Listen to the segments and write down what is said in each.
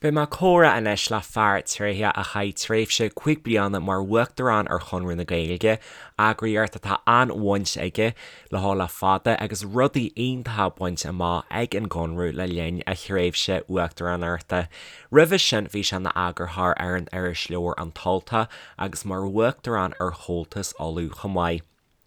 Beidh mé ag comhrá anois le fear tréitheach a chaith tréimhse 5 bliana mar Uachtarán ar Chonradh na Gaeilge, eagraíocht atá an-bhaint aige leo le fada agus rudaí iontacha bainte amach ag an gConradh le linn a thréimhse uachtaránachta. Roimhe sin bhí sé ina eagarthóir ar an irisleabhar An tUltach agus mar Uachtarán ar Chomhaltas Uladh chomh maith.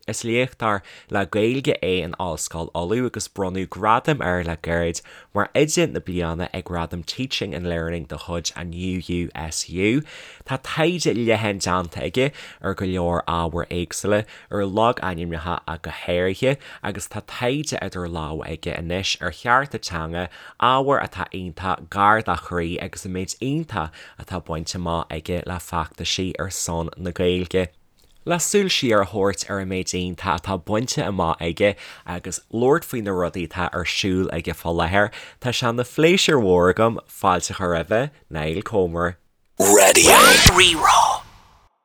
Is léachtóir le Gaeilge é in Ollscoil Uladh agus bronnadh gradam air le gairid mar Oide na Bliana ag Gradaim Teaching and Learning de chuid an UUSU. Tá taighde leathan déanta aige ar go leor ábhair éagsúla, ar logainmneacha ach go háirithe, agus tá taighde idir lámha aige anois ar chearta teanga, ábhar atá iontach gar dá chroí agus an méid iontach atá bainte amach aige le feachtaisí ar son na Gaeilge. Le súil siar a thabhairt ar an méid iontach atá bainte amach aige agus labhairt faoi na rudaí atá ar siúl aige fá láthair, tá sé ina phléisiúr mhór agam fáilte a chur roimhe, Niall Comer. Raidió Rí-Rá.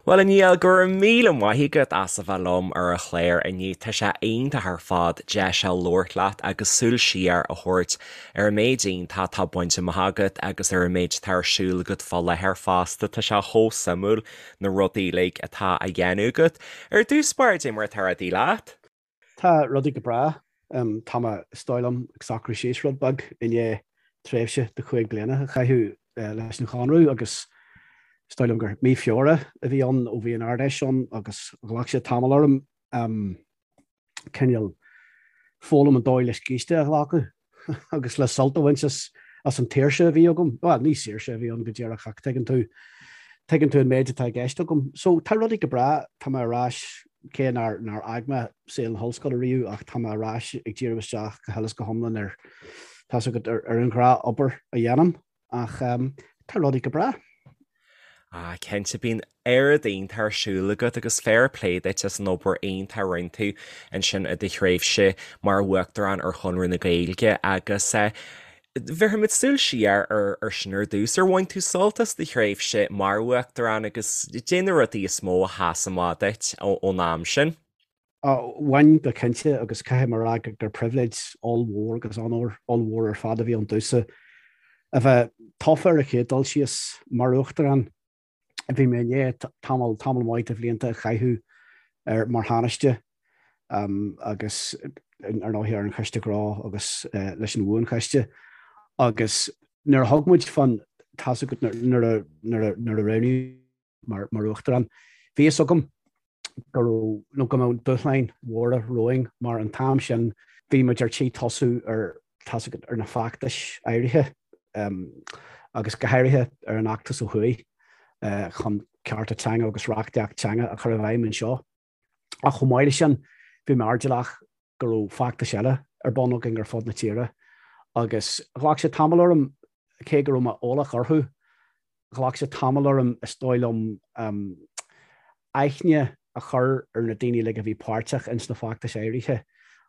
Bhuel, a Niall, go raibh míle maith agat as a bheith liom ar an chlár inniu. Tá sé iontach ar fad deis a labhairt leat agus súil siar a thabhairt ar an méid iontach atá bainte amach agat agus ar an méid atá ar siúl agat fá láthair fosta. Tá sé chomh suimiúil na rudaí uilig atá á dhéanamh agat. Ar dtús báire, cad é mar atá rudaí leat? Tá rudaí go breá. Tá mé, is dóigh liom, ag socrú síos rud beag i ndiaidh tréimhse de chúig bliana a chaitheamh leis an Chonradh agus is dóigh liom gur mí Feabhra a bhí ann ó bhí an Ard-Fheis ann agus ghlac sé tamall orm. cineál foghlaim an dóigh le scíste a ghlacadh agus le sult a bhaint as as an tsaoirse a bhí agam. Bhuel, ní saoirse a bhí ann go díreach ach tuigeann tú, tuigeann tú an méid atá i gceist agam. So, tá rudaí go breá, tá mé ar ais, cé nár, nár fhág mé saol na hollscoile riamh ach tá mé ar ais ag díriú isteach go huile is go hiomlán ar, tá's agat, ar, ar an ghnáth-obair a dhéanaim. Ach tá rudaí go breá. Ah, cinnte, bíonn oiread iontach ar siúl agat agus fair play duit as an obair iontach a rinne tú ansin i do thréimhse mar Uachtarán ar Chonradh na Gaeilge agus eh, bhéarfaimid súil siar ar ar sin ar dtús. Ar bhain tú sult as do thréimhse mar Uachtarán agus cad é na rudaí is mó a sheas amach duit ón am sin? Bhain go cinnte agus caithfidh mé a rá gur pribhléid ollmhór agus onóir ollmhór ar fad a bhí ann domhsa a bheith tofa ar an chéad dul síos mar Uachtarán. Bhí mé i ndiaidh tamall, tamall maith de bhlianta a chaitheamh ar mar Thánaiste agus ar ndóigh ar an Choiste Gnó agus leis an Bhuanchoiste agus nuair a thug muid fán tá's agat nuair a nuair a nuair a roghnaíodh mar mar Uachtarán bhí fhios agam go raibh nó go mbeadh dúshláin mhóra romhainn mar an t-am sin bhí muid ar tí tosú ar tá's agat ar na feachtais áirithe agus go háirithe ar an fheachtas ó thuaidh chun cearta teanga agus reachtaíocht teanga a chur i bhfeidhm anseo. Ach chomh maith leis sin bhí mé airdeallach go raibh feachtais eile ar bun againn ar fud na tíre agus ghlac sé tamall orm cé go raibh mé eolach orthu Ghlac sé tamall orm, is dóigh liom, aithne a chur ar na daoine uilig a bhí páirteach ins na feachtais áirithe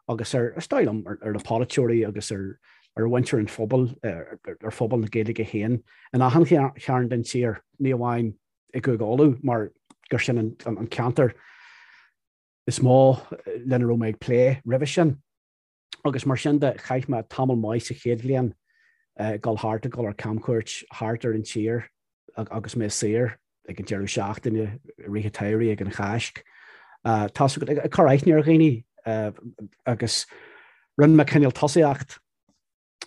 agus ar, is dóigh liom, ar na polaiteoirí agus ar ar mhuintir an phobail, ar phobal na Gaeilge féin in achan chearn den tír, ní amháin i gCúige Uladh mar gur sin an ceantar is mó lena raibh mé ag plé roimhe sin. Agus mar sin de, chaith mé tamall maith sa chéad bhliain ag dul thart, ag dul ar camchuairt thart ar an tír agus mé saor ag an deireadh seachtaine, i rith an tsamhraidh, ag an Cháisc. Tá's agat, ag cur aithne ar dhaoine agus rinne mé cineál tosaíocht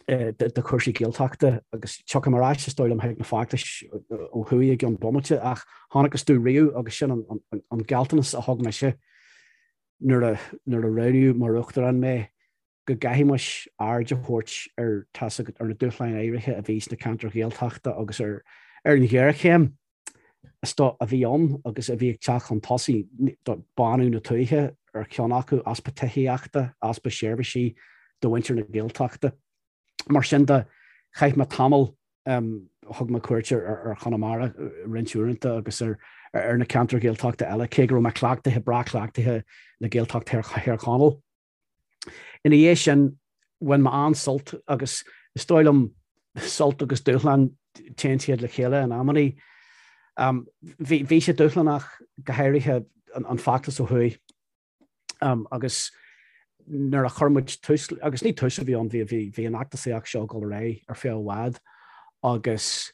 de chúrsaí Gaeltachta agus tiocfaidh mé ar ais, is dóigh liom, chuig na feachtais ó thuaidh i gceann bomaite ach chonacthas domh riamh agus sin an gealltanas a thug mise nuair a nuair a roghnaíodh mar Uachtarán mé, go gcaithfimis aird a thabhairt ar, tá's agat, ar na dúshláin áirithe a bhí sna ceantair Ghaeltachta agus ar ar an ghéarchéim is dóigh a bhí ann agus a bhí ag teacht chun tosaigh, bánú na tuaithe ar cheann acu, easpa tithíochta, easpa seirbhísí do mhuintir na Gaeltachta. Mar sin de, chaith mé tamall Thug mé cuairt ar Chonamara roinnt uaireanta agus ar na ceantair Ghaeltachta eile, cé go raibh mé cleachtaithe, breá cleachtaithe le Gaeltacht Thír Chonaill. Ina dhiaidh sin, bhain mé an-sult agus is dóigh liom sult agus dúshlán, téann siad le chéile in amannaí. Bhí sé dúshlánach, go háirithe an feachtas ó thuaidh. Agus nuair a chuir muid tús, agus ní tús a bhí ann, bhí, bhí, bhí an fheachtasaíocht seo ag dul ar aghaidh ar feadh i bhfad agus.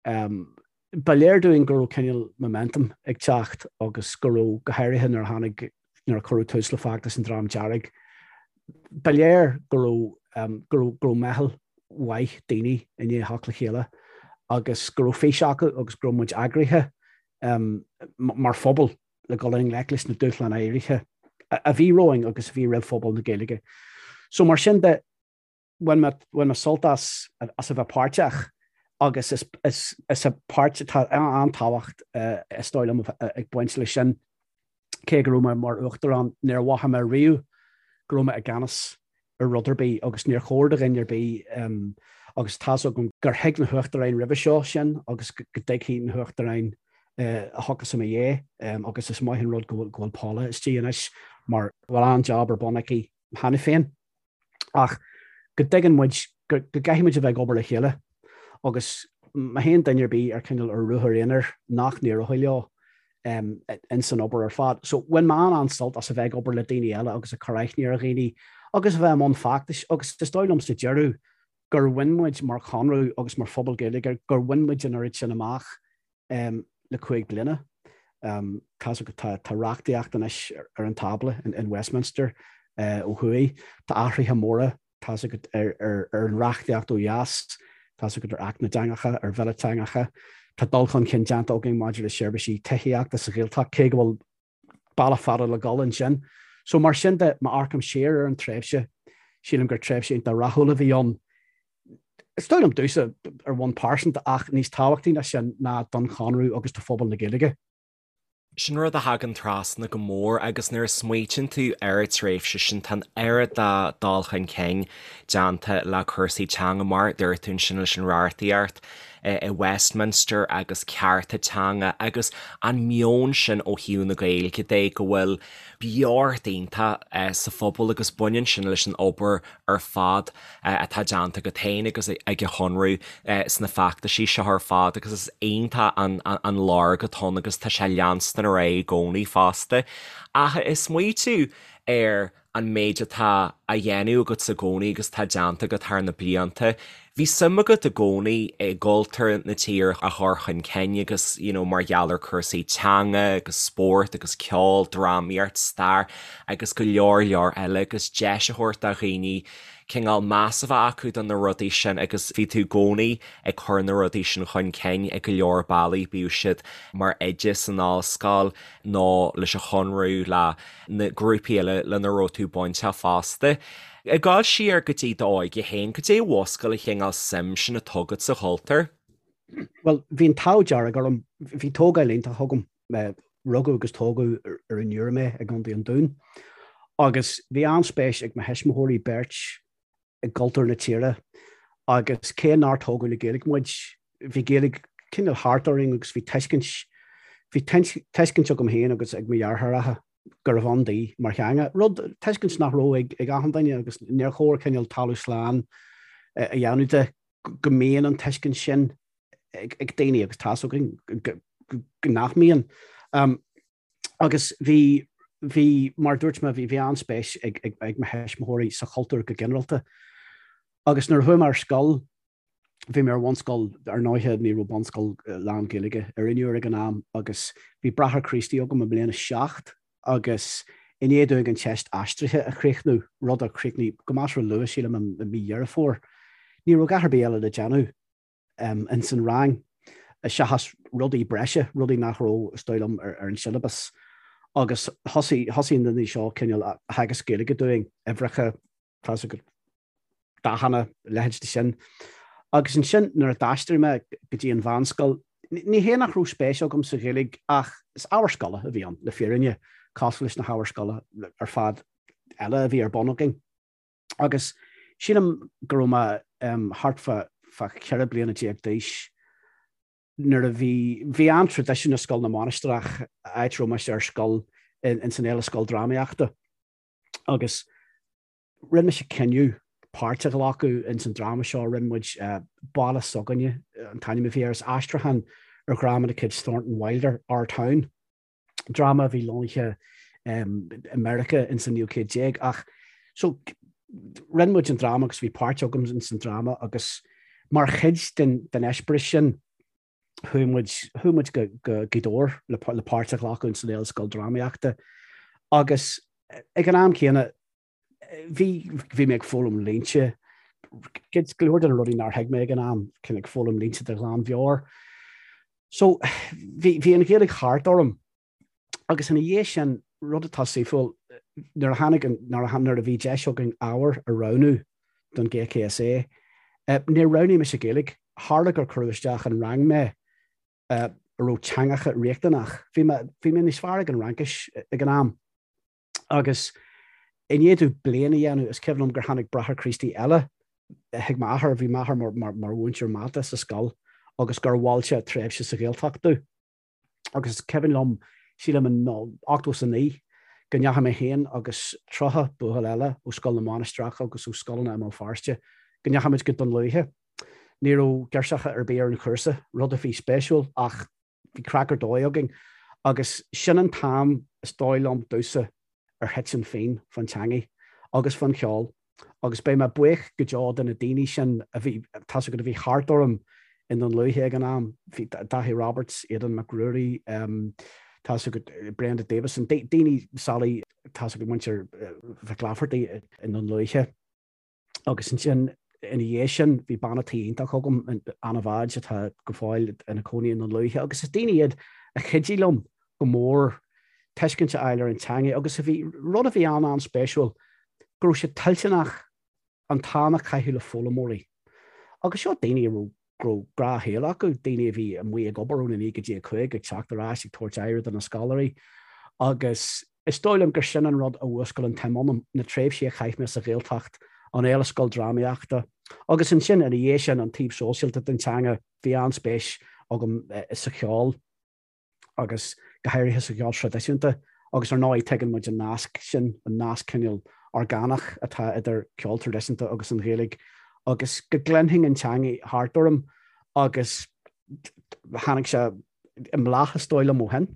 Ba léir dúinn go raibh cineál momentum ag teacht agus go raibh, go háirithe nuair a tháinig, nuair a cuireadh tús le feachtas an Dream Dearg, ba léir go raibh, go raibh, go raibh meitheal mhaith daoine i ndiaidh theacht le chéile agus go raibh fís acu agus go raibh muid eagraithe mar phobal le dul i ngleic leis na dúshláin áirithe a bhí romhainn agus a bhí roimh phobal na Gaeilge. So mar sin de, bhain mé, bhain mé sult as, as a bheith páirteach agus is, is, is a páirt, tá an-tábhacht is dóigh liom ag baint leis sin. Cé go raibh mé mar uachtarán, níor mhothaigh mé riamh go raibh mé i gceannas ar rud ar bith agus níor chóir do dhuine ar bith agus tá's agam gur thuig na huachtaráin roimhe seo sin agus go dtuigfidh na huachtaráin a thiocfas i mo dhiaidh agus is maith an rud go bhfuil Paula istigh anois mar bhfuil an-jab ar bun aici cheana féin. Ach go dtuigeann muid go gcaithfidh muid a bheith ag obair le chéile agus má théann duine ar bith ar cineál ar ruathar aonair nach n-éireoidh leo ins an obair ar fad. So bhain mé an-sult as a bheith ag obair le daoine eile agus ag cur aithne ar dhaoine agus a bheith i mbun feachtais agus is dóigh liom sa deireadh gur bhain muid mar Chonradh agus mar phobal Gaeilge gur bhain muid an oiread sin amach le 5 bliana. Tá's agat tá reachtaíocht anois ar an tábla in Westminster ó thuaidh. Tá athruithe móra tá's agat ar an reachtaíocht ó dheas, tá's agat ar Acht na dTeangacha, ar Bhille Teangacha. Tá dul chun cinn déanta againn maidir le seirbhísí tithíochta sa Ghaeltacht, cé go bhfuil bealach fada le dhul ansin. So mar sin de, má amharcaim siar ar an tréimhse, sílim gur tréimhse iontach rathúil a bhí ann. Is dóigh liom domhsa ar bhonn pearsanta ach níos tábhachtaí ná sin ná don Chonradh agus do phobal na Gaeilge. Sin rud a thagann trasna go mór agus nuair a smaoitíonn tú ar an tréimhse sin tá an oiread de dul chun cinn déanta le cúrsaí teanga mar a dúirt tú ansin leis an reachtaíocht i Westminster agus cearta teanga agus an meon sin ó thaobh na Gaeilge de go bhfuil beocht iontach sa phobal agus baineann sin leis an obair ar fad atá déanta agat féin agus ag an Chonradh sna feachtaisí seo ar fad agus is iontach an lorg atá ann agus tá sé leanstan ar aghaidh i gcónaí fosta. Ach ag smaoitiú ar an méid atá á dhéanamh agat i gcónaí agus atá déanta agat thar na blianta. Bhí suim agat i gcónaí i gcultúr na tíre a chur chun cinn agus you know mar gheall ar cúrsaí teanga agus spórt agus ceol, drámaíocht, stair agus go leor leor eile agus deis a thabhairt do dhaoine cineál meas a bheith acu do na rudaí sin agus bhí tú i gcónaí ag cur na rudaí sin chun cinn i go leor bealaí, bíodh siad mar oide san ollscoil nó leis an Chonradh, le na grúpaí eile lena raibh tú bainteach fosta. Ag dul siar go dtí d'óige féin, cad é a mhúscail an chineál suim sin atá agat sa chultúr? Bhuel, bhí an t-ádh dearg orm, bhí tógáil iontach agam. Rugadh agus tógadh ar an Iúr mé i gContae an Dúin agus bhí an-spéis ag mo thuismitheoirí beirt i gcultúr na tíre agus cé nár tógadh le Gaeilge muid, bhí Gaeilge cineál thart orainn agus bhí tuiscint, bhí tuiscint agam féin agus ag mo dheartháireacha gurbh ann di mar theanga, rud, tuiscint nach raibh ag ag achan duine agus níor chóir cineál talamh slán a dhéanamh de go mbíonn an tuiscint sin ag ag daoine agus tá's againn go nach mbíonn. Agus bhí, bhí, mar a dúirt mé, bhí, bhí an-spéis ag, ag, ag mo thuismitheoirí sa chultúr go ginearálta. Agus nuair a chuaigh mé ar scoil, bhí mé ar bhunscoil, ar ndóighe ní raibh bunscoil lán-Ghaeilge ar an Iúr ag an am agus bhí Bráthair Críostaí agam i mbliain a 7 agus i ndiaidh dúinn an teist aistrithe a chríochnú, rud a chríochnaigh go measartha luath, sílim, i mí Dheireadh Fómhair, ní raibh a dhath ar bith eile le déanamh. ins an rang, seachas rudaí breise, rudaí nach raibh, is dóigh liom, ar an siollabas. Agus thosaigh, thosaigh na daoine seo cineál ag teagasc Gaeilge dúinn, uimhreacha, tá's agat, dathanna, a leithéid de sin. Agus ansin nuair a d'aistrigh mé go dtí an mheánscoil, ní hé nach raibh spéis agam sa Ghaeilge ach is ábhar scoile a bhí ann, le fírinne, cosúil leis na hábhair scoile ar fad eile a bhí ar bun againn. Agus sílim go raibh mé thart fá 14 bliana d'aois nuair a bhí, bhí an-traidisiún i Scoil na Mainistreach, áit a raibh mise ar scoil, ins an Fhéile Scoildrámaíochta. Agus rinne mise cinneadh páirt a ghlacadh ins an dráma seo, rinne muid Baile S'againne an t-ainm a bhí air, is aistriúchán ar dhráma de chuid Thornton Wilder, Our Town. dráma a bhí lonnaithe i Meiriceá ins an naoú céad déag ach so rinne muid an dráma agus bhí páirt agam ins an dráma agus mar chuid den den eispéireas sin. Chuaigh muid, chuaigh muid go, go Gaoth Dobhair le, le páirt a ghlacadh in san Fhéile Scoil Drámaíochta agus ag an am céanna bhí, bhí mé ag foghlaim línte, go leor de na rudaí nár thuig mé ag an am, cineál ag foghlaim línte de ghlanmheabhair. So bhí, bhí an Ghaeilge thart orm Agus ina dhiaidh sin, rud atá saoithiúil, nuair a tháinig an, nuair a, nuair a bhí deis againn ábhar a roghnú don GCSE, níor roghnaigh mise Gaeilge. Tharla gur cuireadh isteach in rang mé a raibh teangacha riachtanach. Bhí mé, bhí mé níos fearr ag an Fhraincis ag an am. Agus i ndiaidh domh bliain a dhéanamh, is cuimhin liom gur tháinig Bráthair Críostaí eile chuig m'athair, bhí m'athair mar, mar, mar mhúinteoir mata sa scoil, agus gur mhol sé tréimhse sa Ghaeltacht domh. Agus is cuimhin liom, sílim in 89, go ndeachaigh mé féin agus 30 buachaill eile ó Scoil na Mainistreach agus ó scoileanna i mBéal Feirste, go ndeachaigh muid go Dún Lúiche. Ní raibh girseacha ar bith ar an chúrsa, rud a bhí spéisiúil ach bhí craic ar dóigh againn. Agus sin an t-am, is dóigh liom, domhsa, ar thit an phian fán teangaidh agus fán cheol agus beidh mé buíoch go deo de na daoine sin a bhí, tá's agat, a bhí thart orm i nDún Lúiche ag an am, bhí Daithí Roberts, Aidan Mac Ruairí, tá's agat, Brenda Davison, daoine, Sally, tá's agat, muintir Mhic Laifeartaigh i nDún Lúiche. Agus ansin ina dhiaidh sin bhí bean a' tí iontach agam, Anna Mhadge, atá go fóill ina cónaí i nDún Lúiche agus is daoine iad a chuidigh liom go mór tuiscint a fháil ar an teanga agus a bhí, rud a bhí an-an-spéisiúil, go raibh siad toilteanach an t-am a chaitheamh le foghlaimeoirí. Agus seo daoine a raibh go raibh gnáthshaol acu, daoine a bhí amuigh ag obair óna 9 go dtí a 5, ag teacht ar ais, ag tabhairt aire do na scoláirí agus is dóigh liom gur sin an rud a mhúscail an tsuim ionam, na tréimhsí a chaith mé sa Ghaeltacht, an Fhéile Scoil Drámaíochta agus ansin ina dhiaidh sin an taobh sóisialta den teanga, bhí an-spéis agam sa cheol. agus go háirithe sa cheol traidisiúnta, agus ar ndóigh tuigeann muid an nasc sin, an nasc cineál orgánach atá idir ceol traidisiúnta agus an Ghaeilge, agus go gcluinfinn an teangaidh thart orm agus tháinig sé i mbláth is dóigh liom ó shin.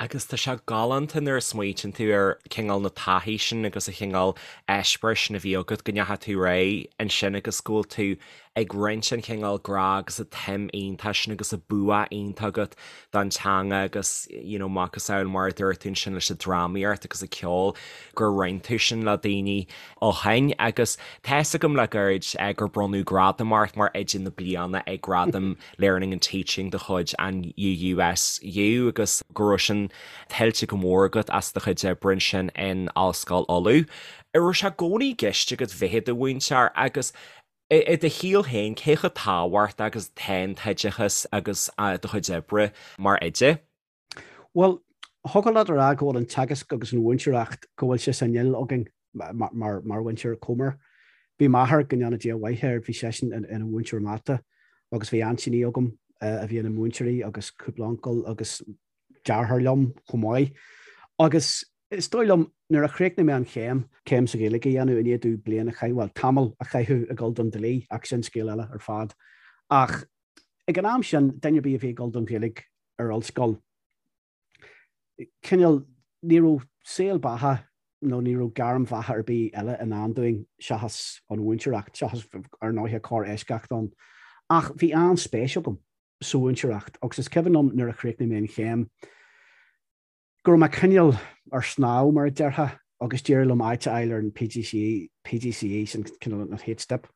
Agus tá sé galánta nuair a smaoitíonn tú ar cineál na taithí sin agus an chineál eispéiris sin a bhí agat go ndeachaigh tú ar aghaidh ansin agus go bhfuil tú ag roinnt an chineál grá agus an tsuim iontach sin agus an bua iontach agat don teanga agus you know macasamhail mar a dúirt tú ansin leis an drámaíocht agus an ceol gur roinn tú sin le daoine ó shin agus tá fhios agam le gairid gur bronnadh gradam ort mar Oide na Bliana ag Gradaim Learning and Teaching de chuid an UUSU agus go raibh sin tuillte go mór agat as do chuid oibre ansin in Ollscoil Uladh. An raibh sé i gcónaí i gceist agat bheith i do mhúinteoir agus I do shaol féin, cé chomh tábhachtach agus atá an t-oideachas agus do chuid oibre mar oide? Bhuel, thiocfadh leat a rá go bhfuil an teagasc agus an mhúinteoireacht, go bhfuil sé san fhuil againn mar mhuintir Comer. Bhí m'athair, go ndéana Dia a mhaith air, bhí seisean ina mhúinteoir mata agus bhí aintíní agam a bhí ina múinteoirí agus cúpla uncail agus deartháir liom chomh maith. Agus is dóigh liom, nuair a chríochnaigh mé an chéim, céim sa Ghaeilge a dhéanamh i ndiaidh domh bliain a chaitheamh, bhuel, tamall a chaitheamh ag dul don dlí, ach sin scéal eile ar fad. Ach ag an am sin, duine ar bith a bhí ag dul don Ghaeilge ar ollscoil, cineál, ní raibh saol beatha nó ní raibh gairm bheatha ar bith eile i ndán dúinn seachas an mhúinteoireacht, seachas, ar ndóighe, corr-eisceacht ann. Ach bhí an-spéis agam sa mhúinteoireacht agus is cuimhin liom nuair a chríochnaigh mé an chéim go raibh mé cineál ar snámh, mar a déarfá, agus d'éirigh liom áit a fháil ar an PGCE, PGCE, sin cineál an chéad step.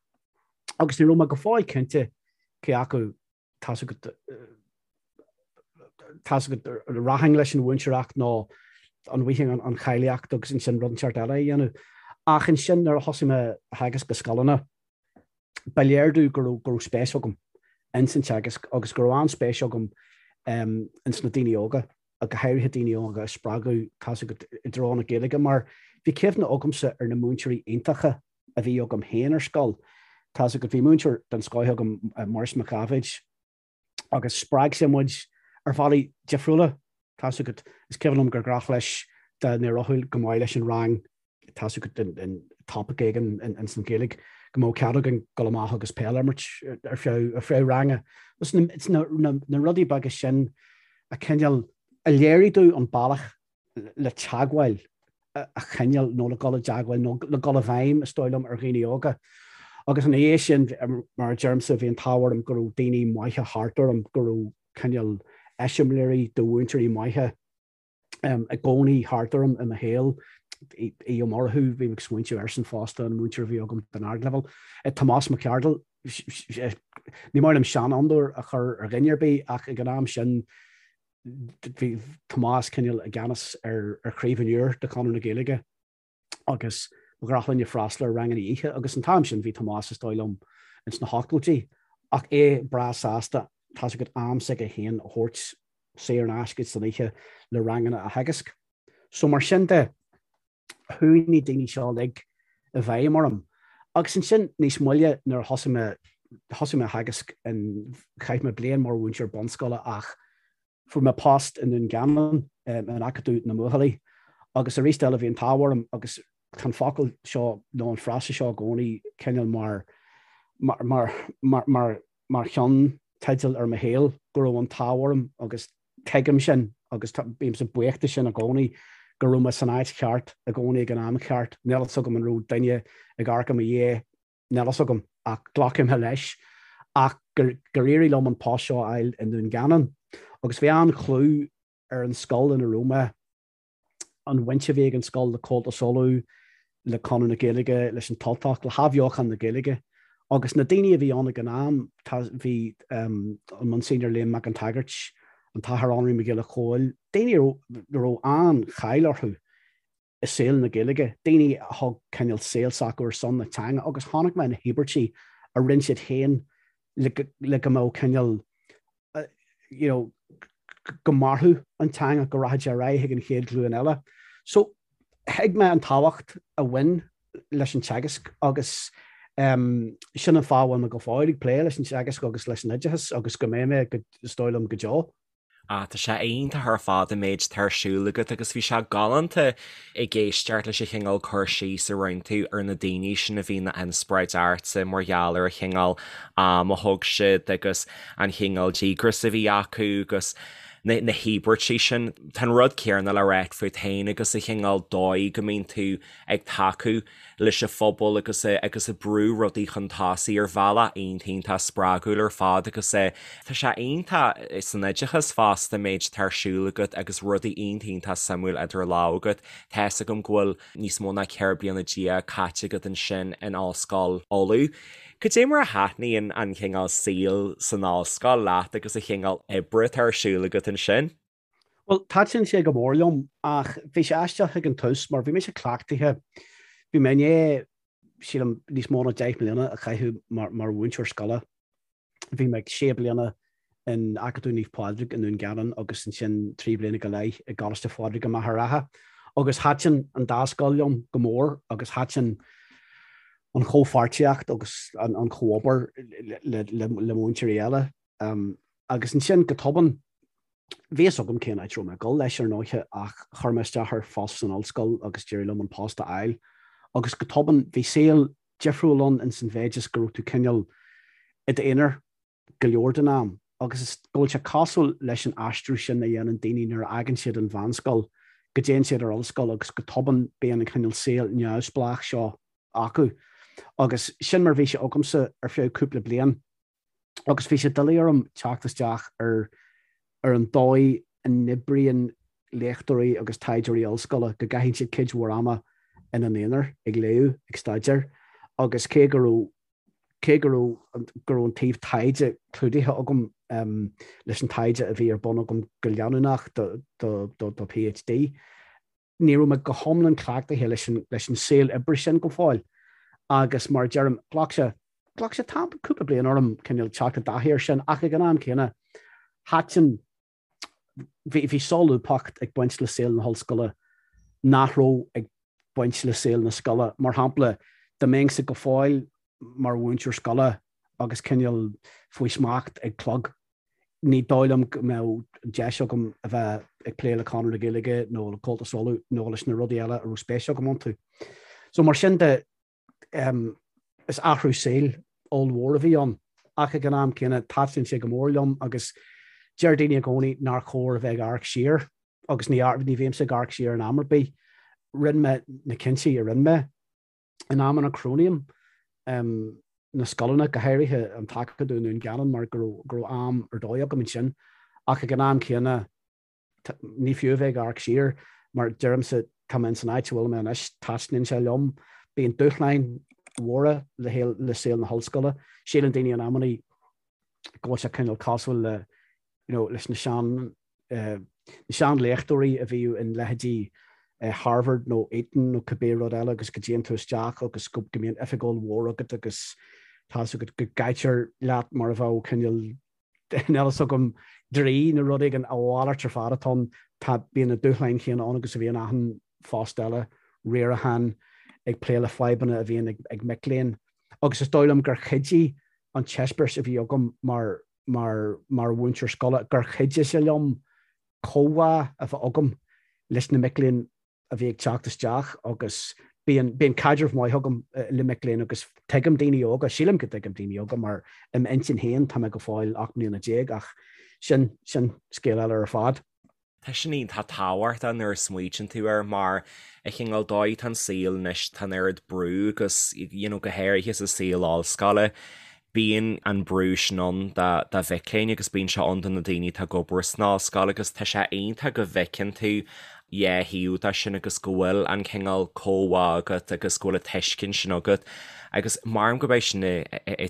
Agus ní raibh mé go fóill cinnte cé acu tá's agat tá's agat an rachainn leis an mhúinteoireacht nó an bhfaighinn an cháilíocht agus ansin rud inteacht eile a dhéanamh. Ach ansin nuair a thosaigh mé a theagasc i scoileanna, ba léir domh go raibh, go raibh spéis agam ins an teagasc agus go raibh an-spéis agam ins na daoine óga, go háirithe daoine óga a spreagadh tá's agat i dtreo na Gaeilge mar bhí cuimhne agamsa ar na múinteoirí iontacha a bhí agam féin ar scoil. Tá's agat, bhí múinteoir den scoith agam, Maurice Mac Dháibhéid, agus spreag sé muid ar bhealaí difriúla. Tá's agat, is cuimhin liom gur ghnách leis dá n-éireodh go maith leis an rang, tá's agat, in topaic éigin ins an Ghaeilge, go mbeadh cead againn dul amach agus peil a imirt ar feadh ar feadh ranga. It's na, na, na rudaí beaga sin a cineál a léirigh domh an bealach le teagmháil a choinneáil nó le dul i dteagmháil nó le dul i bhfeidhm, is dóigh liom, ar dhaoine óga. Agus ina dhiaidh sin, mar a deirimse, bhí an t-ádh orm go raibh daoine maithe thart orm, go raibh. cineál eiseamláirí de mhúinteoirí maithe i gcónaí thart orm i mo shaol. Aodh Ó Murchú, bhí mé ag smaointiú airsean fosta, an múinteoir a bhí agam don ardleibhéal. Tomás Mac Ceardail, ní maith liom seanfhondúir a chur ar dhuine ar bith ach ag an am sin bhí Tomás cineál i gceannas ar Chraobh an Iúir de Chonradh na Gaeilge agus ba ghnách linne freastal ar ranganna oíche agus an t-am sin bhí Tomás is dóigh liom ins na hochtóidí ach é breá sásta tá's agat am s'aige féin a thabhairt saor in aisce san oíche le ranganna a theagasc. So mar sin de, chuaigh na daoine seo uilig i bhfeidhm orm. Agus ansin níos moille nuair a thosaigh mé, thosaigh mé a theagasc in, chaith mé bliain mar mhúinteoir bunscoile ach fuair mé post i nDún Geanainn in Acadamh na mBuachaillí agus arís eile bhí an t-ádh orm agus tá an focal seo nó an frása seo i gcónaí cineál mar, mar, mar, mar, mar, mar cheannteideal ar mo shaol, go raibh an t-ádh orm agus tuigim sin agus bímse buíoch de sin i gcónaí, go raibh mé san áit cheart i gcónaí ag an am cheart. Níl fhios agam an raibh duine ag amharc i mo dhiaidh, níl fhios agam, ach glacfaidh mé leis, ach gur éirigh liom an post seo a fháil i nDún Geanainn. Agus bhí an-chlú ar an scoil ina raibh mé. an bhaint a bhí ag an scoil le Comhaltas Uladh, le Conradh na Gaeilge, leis an tUltacht, le hathbheochan na Gaeilge. Agus na daoine a bhí ann ag an am, tá, bhí an Monsignor Liam Mac an tSagairt, an tAthair Anraí Mac Giolla Chóill, daoine a raibh, a raibh an-cháil orthu i saol na Gaeilge, daoine a thug cineál saol s'acu ar son na teanga agus chonaic mé na híobairtí a rinne siad féin le le go mbeadh cineál you know, go mairfeadh an teanga, go rachadh sé ar aghaidh chuig an chéad ghlúin eile. So, thuig mé an tábhacht a bhain leis an teagasc agus um, sin an fáth a bhfuil mé go fóill ag plé leis an teagasc agus leis an oideachas agus go mbeidh mé go, is dóigh liom, go deo. Ah, tá sé iontach ar fad an méid atá ar siúl agat agus bhí sé galánta ag éisteacht leis an chineál cur síos a rinne tú ar na daoine sin a bhí ina n-inspioráid ortsa mar gheall ar an chineál am a thug siad agus an chineál díograis a bhí acu agus na na híobairtí sin. Tá an rud céanna le ráit fút féin agus an chineál dóigh go mbíonn tú ag tacú leis an phobal agus agus ag brú rudaí chun tosaigh ar bhealach iontach iontach spreagúil ar fad agus tá sé iontach san oideachas fosta an méid atá ar siúl agat agus rudaí iontach iontach suimiúil idir lámha agat. Tá fhios agam go bhfuil níos mó ná 14 bliana caite agat ansin in Ollscoil Uladh. Cad é mar a thaitníonn an cineál saoil san ollscoil leat agus an chineál oibre atá ar siúl agat ansin? Bhuel, thaitin sé go mór liom, ach bhí sé aisteach ag an tús mar bhí mise cleachtaithe, bhí mé i ndiaidh, sílim, níos mó ná 10 mbliana a chaitheamh mar mhúinteoir scoile. Bhí mé sé bliana in Acadamh Naomh Pádraig i nDún Geanainn agus ansin 3 bliana go leith i gColáiste Phádraig i Machaire Rátha. Agus thaitin an dá scoil liom go mór agus thaitin an chomhpháirtíocht agus an chomhobair le múinteoirí eile. Agus ansin go tobann, Bhí fhios agam cén áit a raibh mé ag dul leis, ar ndóiche, ach chuir mé isteach ar phost san ollscoil agus d'éirigh liom an post a fháil. Agus go tobann, bhí saol difriúil ann ins an mhéid is go raibh tú cineál i d'aonar go leor den am. Agus is go bhfuil sé cosúil leis an aistriú sin a dhéanann daoine nuair a fhágann siad an mheánscoil, go dtéann siad ar ollscoil agus go tobann bíonn an cineál saol neamhspleách seo acu. Agus sin mar a bhí sé agamsa ar feadh cúpla bliain. agus bhí sé doiligh orm teacht isteach ar ar an dóigh a n-oibríonn léachtóirí agus taighdeoirí ollscoile, go gcaitheann siad cuid mhór ama ina n-aonar ag léamh, ag staidéar, agus cé go raibh cé go raibh go raibh an taobh taighde clúdaithe agam leis an taighde a bhí ar bun agam go leanúnach do do do do PhD, ní raibh mé go hiomlán cleachtaithe leis an, leis an saol oibre sin go fóill agus mar a deirim, ghlac sé, ghlac sé tam, cúpla bliain orm cineál teacht i dtaithí air sin ach ag an am céanna, thaitin, bhí, bhí solúbthacht ag baint le saol na hollscoile nach raibh ag baint le saol na scoile. Mar shampla, dá mbeinnse go fóill mar mhúinteoir scoile agus cineál faoi smacht ag clog, ní dóigh liom go mbeadh deis agam a bheith ag plé le Conradh na Gaeilge nó le Comhaltas Uladh nó leis na rudaí eile a raibh spéis agam iontu. So mar sin de, is athrú saoil ollmhór a bhí ann ach ag an am céanna thaitin sé go mór liom agus deir daoine i gcónaí nár chóir a bheith ag amharc siar agus ní, ní bhímse ag amharc siar in am ar bith. Rinne mé na cinntí a rinne mé. In amanna cronaím na scoileanna, go háirithe an tAcadamh i nDún Geanainn mar go raibh am ar dóigh agam ansin. Ach ag an am céanna, ní fiú a bheith ag amharc siar, mar deirimse, tá mé ins an áit a bhfuil mé anois, taitníonn sé liom. Bíonn dúshláin mhóra le le saol na hollscoile. Síleann daoine in amannaí go bhfuil sé cineál cosúil le, you know, leis na sean, na seanléachtóirí a bhíodh in leithéidí Harvard nó Eton nó cibé rud eile agus go dtéann tú isteach agus go mbíonn oifig ollmhór agat agus tá's agat go gcaitear leat mar a bheadh cineál níl a fhios agam draoi nó rud éigin, a mhalairt ar fad atá ann. Tá, bíonn na dúshláin chéanna ann agus a bhíonn achan phost eile, riarachán, ag plé le fadhbanna a bhíonn ag mic léinn. Agus is dóigh liom gur chuidigh an t-eispéireas a bhí agam mar mar mar mhúinteoir scoile, gur chuidigh sé liom comhbhá a bheith agam leis na mic léinn a bhí ag teacht isteach agus bíonn bíonn caidreamh maith agam le mic léinn agus tuigim daoine óga, sílim go dtuigim daoine óga mar i m'intinn féin tá mé go fóill 18 mbliana ach sin sin scéal eile ar fad. Tá sin iontach tábhachtach nuair a smaoitíonn tú air mar an cineál dóigh atá an saol anois tá an oiread brú agus you know go háirithe sa saol ollscoile bíonn an brú sin ann do do mhic léinn agus bíonn sé ann do na daoine atá ag obair san ollscoil agus tá sé iontach go bhfeiceann tú dhá thaobh de sin agus go bhfuil an cineál comhbhá agat agus go bhfuil an tuiscint sin agat agus maram gurb é sin an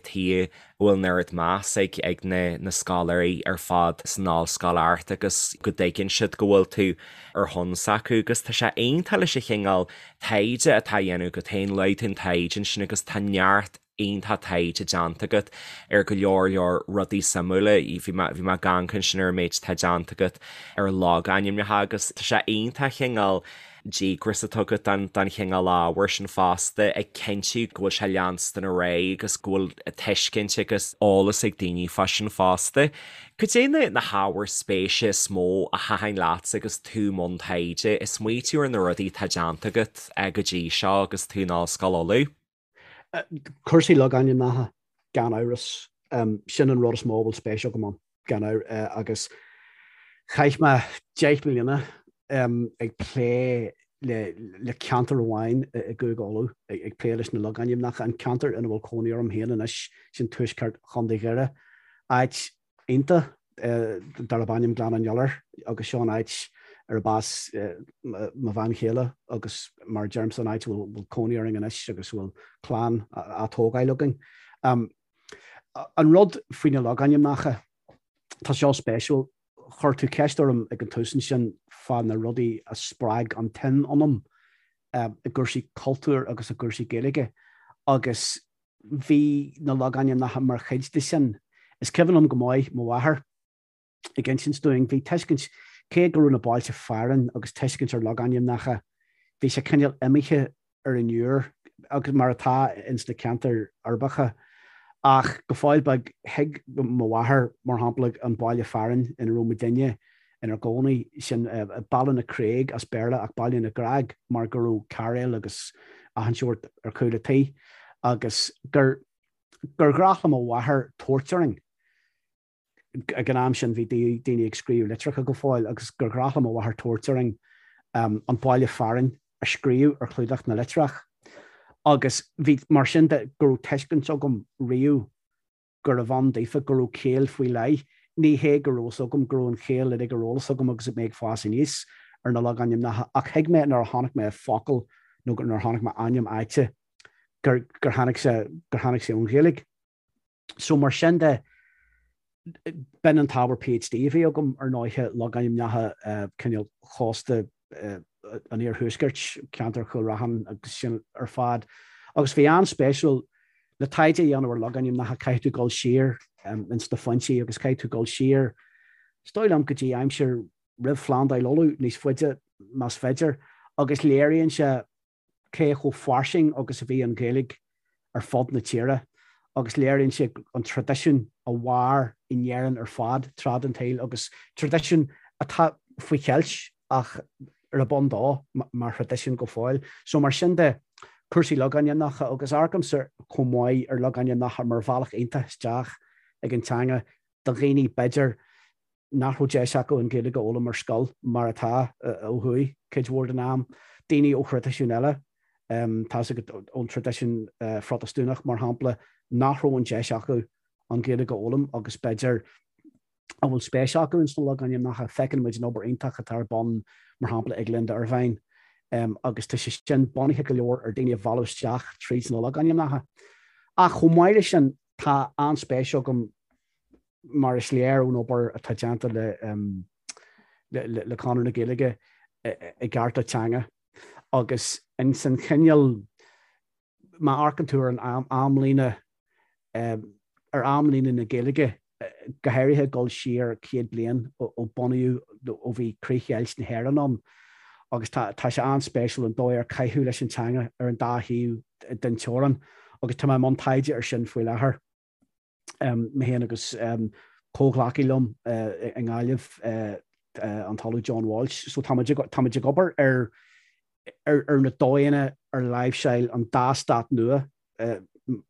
tuige a bhfuil an oiread meas ag ag na na scoláirí ar fad san ollscoil ort agus go dtuigeann siad go bhfuil tú ar shon s'acu agus tá sé iontach leis an chineál taighde atá á dhéanamh agat féin, luaigh tú an taighde ansin agus tá neart iontach taighde déanta agat ar go leor leor rudaí suimiúla. Bhí mé bhí mé ag amharc ansin ar an méid atá déanta agat ar logainmneacha agus tá sé iontach cineál díograis atá agat don chineál ábhair sin fosta, ag cinntiú go bhfuil sé leanstan ar aghaidh agus go bhfuil tuiscint agus eolas ag daoine fá sin fosta. Cad é na hábhair spéise is mó a thaitin leatsa agus tú i mbun taighde, ag smaoitiú ar na rudaí atá déanta agat go dtí seo agus tú in Ollscoil Uladh? Cúrsaí logainmneacha, gan amhras. Sin an rud is mó a bhfuil spéis agam ann, gan amhras. Agus chaith mé 10 mbliana ag plé le ceantar amháin i gCúige Uladh, ag plé leis na logainmneacha, an ceantar ina bhfuil cónaí orm féin anois, sin tuaisceart Chontae Dhoire, áit iontach darb ainm Gleann an Iolair agus seo an áit arb as mo bhean chéile agus mar a deirimse an áit a bhfuil cónaí orainn anois agus a bhfuil clann á tógáil againn. An rud faoi na logainmneacha, tá seo spéisiúil, chuir tú ceist orm ag an tús ansin fá na rudaí a spreag an tsuim ionam i gcúrsaí cultúir agus i gcúrsaí Gaeilge agus Bhí na logainmneacha mar chuid de sin. Is cuimhin liom go maith mo mháthair ag insint dúinn, bhí tuiscint, cé go raibh na bailte fearainn agus tuiscint ar logainmneacha, bhí sé cineál imithe ar an iúr, agus mar atá ins na ceantair uirbeacha. Ach go fóill beag, thuig mo mháthair, mar shampla, an baile fearainn ina raibh muidinne inár gcónaí, sin Ballynacraig as Béarla ach Baile na gCreag mar go raibh cairéil agus achan seort ar chúl a' tí agus gur gur ghnách le mo mháthair tabhairt orainn ag an am sin bhí daoine ag scríobh litreacha go fóill agus gur ghnách le mo mháthair tabhairt orainn an baile fearainn a scríobh ar chlúdach na litreach agus bhí mar sin de go raibh tuiscint agam riamh gurbh ann daofa, go raibh ciall faoi leith. Ní hé go raibh fhios agam go raibh an chiall uilig ar eolas agam agus mé ag fás aníos ar na logainmneacha ach thuig mé nuair a chonaic mé focal nó nuair a chonaic mé ainm áite gur gur tháinig sé gur tháinig sé ón Ghaeilge. So mar sin de, b'in an t-ábhar PhD a bhí agam ar ndóiche, logainmneacha cineál chósta an iarthuaiscirt, ceantar Chúil Raithin agus sin ar fad. Agus bhí an-spéisiúil le taighde a dhéanamh ar logainmneacha caithfidh tú dul siar ins na foinsí agus caithfidh tú dul siar, is dóigh liom, go dtí aimsir roimh Phlandáil Uladh, níos faide más féidir, agus léiríonn sé cé chomh fairsing agus a bhí an Ghaeilge ar fud na tíre agus léiríonn sé an traidisiún a mhair in Éirinn ar fad tráth den tsaol agus traidisiún atá faoi cheilt ach arb ann dó mar thraidisiún go fóill. So mar sin de, cúrsaí logainmneacha agus amharcaimse chomh maith ar logainmneacha mar bhealach iontach isteach ag an teanga do dhaoine b'fhéidir nach raibh deis acu an Ghaeilge a fhoghlaim ar scoil, mar atá ó thuaidh cuid mhór den am. Daoine ó thraidisiúin eile, tá's agat, ón traidisiún Phrotastúnach, mar shampla, nach raibh an deis acu an Ghaeilge a fhoghlaim agus b'fhéidir. a bhfuil spéis acu ins na logainmneacha. Feiceann muid an obair iontach atá ar bun, mar shampla, ag Linda Ervine, agus tá sé sin bunaithe go leor ar daoine a mhealladh isteach tríd na logainmneacha. Ach chomh maith leis sin, tá an-spéis agam, mar is léir ón obair atá déanta le le Conradh na Gaeilge, i gcearta teanga agus ins an chineál má amharcann tú ar an amlíne, ar amlíne na Gaeilge, go háirithe ag dul siar 100 bliain ó bunaíodh, ó bhí críochdheighilt na hÉireann ann, agus tá tá sé an-spéisiúil an dóigh ar caitheadh leis an teanga ar an dá thaobh den teorainn, agus tá mé i mbun taighde ar sin faoi láthair. Mé féin agus comhghleacaí liom i nGaillimh, an tOllamh John Walsh. So táimid táimid ag obair ar ar na dóigheanna ar láimhseáil an dá stát nua,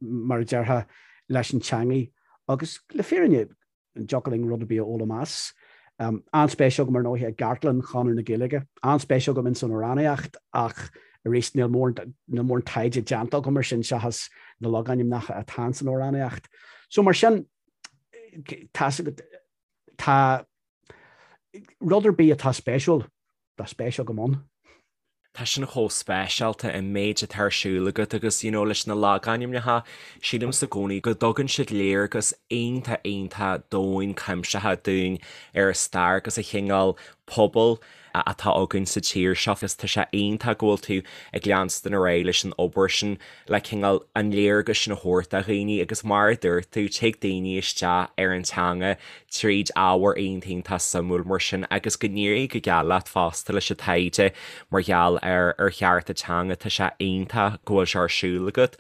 mar a déarfá, leis an teangaidh agus le fírinne an dtiocfadh linn rud ar bith a fhoghlaim as. An-spéis agam ar ndóigh i gcartlann Chonradh na Gaeilge. An-spéis agam ins an amhránaíocht ach arís níl mórán níl mórán taighde déanta agam ar sin seachas na logainmneacha atá ins an amhránaíocht. So mar sin tá tá rud ar bith atá spéisiúil, tá spéis agam ann. Tá sin chomh speisialta an méid atá ar siúl agat agus you know leis na logainmneacha, sílimse i gcónaí go dtugann siad léargas iontach iontach domhain cuimsitheach dúinn ar an stair agus an chineál pobail atá againn sa tír seo agus tá sé iontach go bhfuil tú ag leanstan ar aghaidh leis an obair sin le cineál an léargas sin a thabhairt do dhaoine agus mar a dúirt tú, tig daoine isteach ar an teanga tríd ábhar iontach iontach suimiúil mar sin agus go n-éirí go geal leat fosta leis an taighde mar gheall ar ar chearta teanga, tá sé iontach go bhfuil sé ar siúl agat.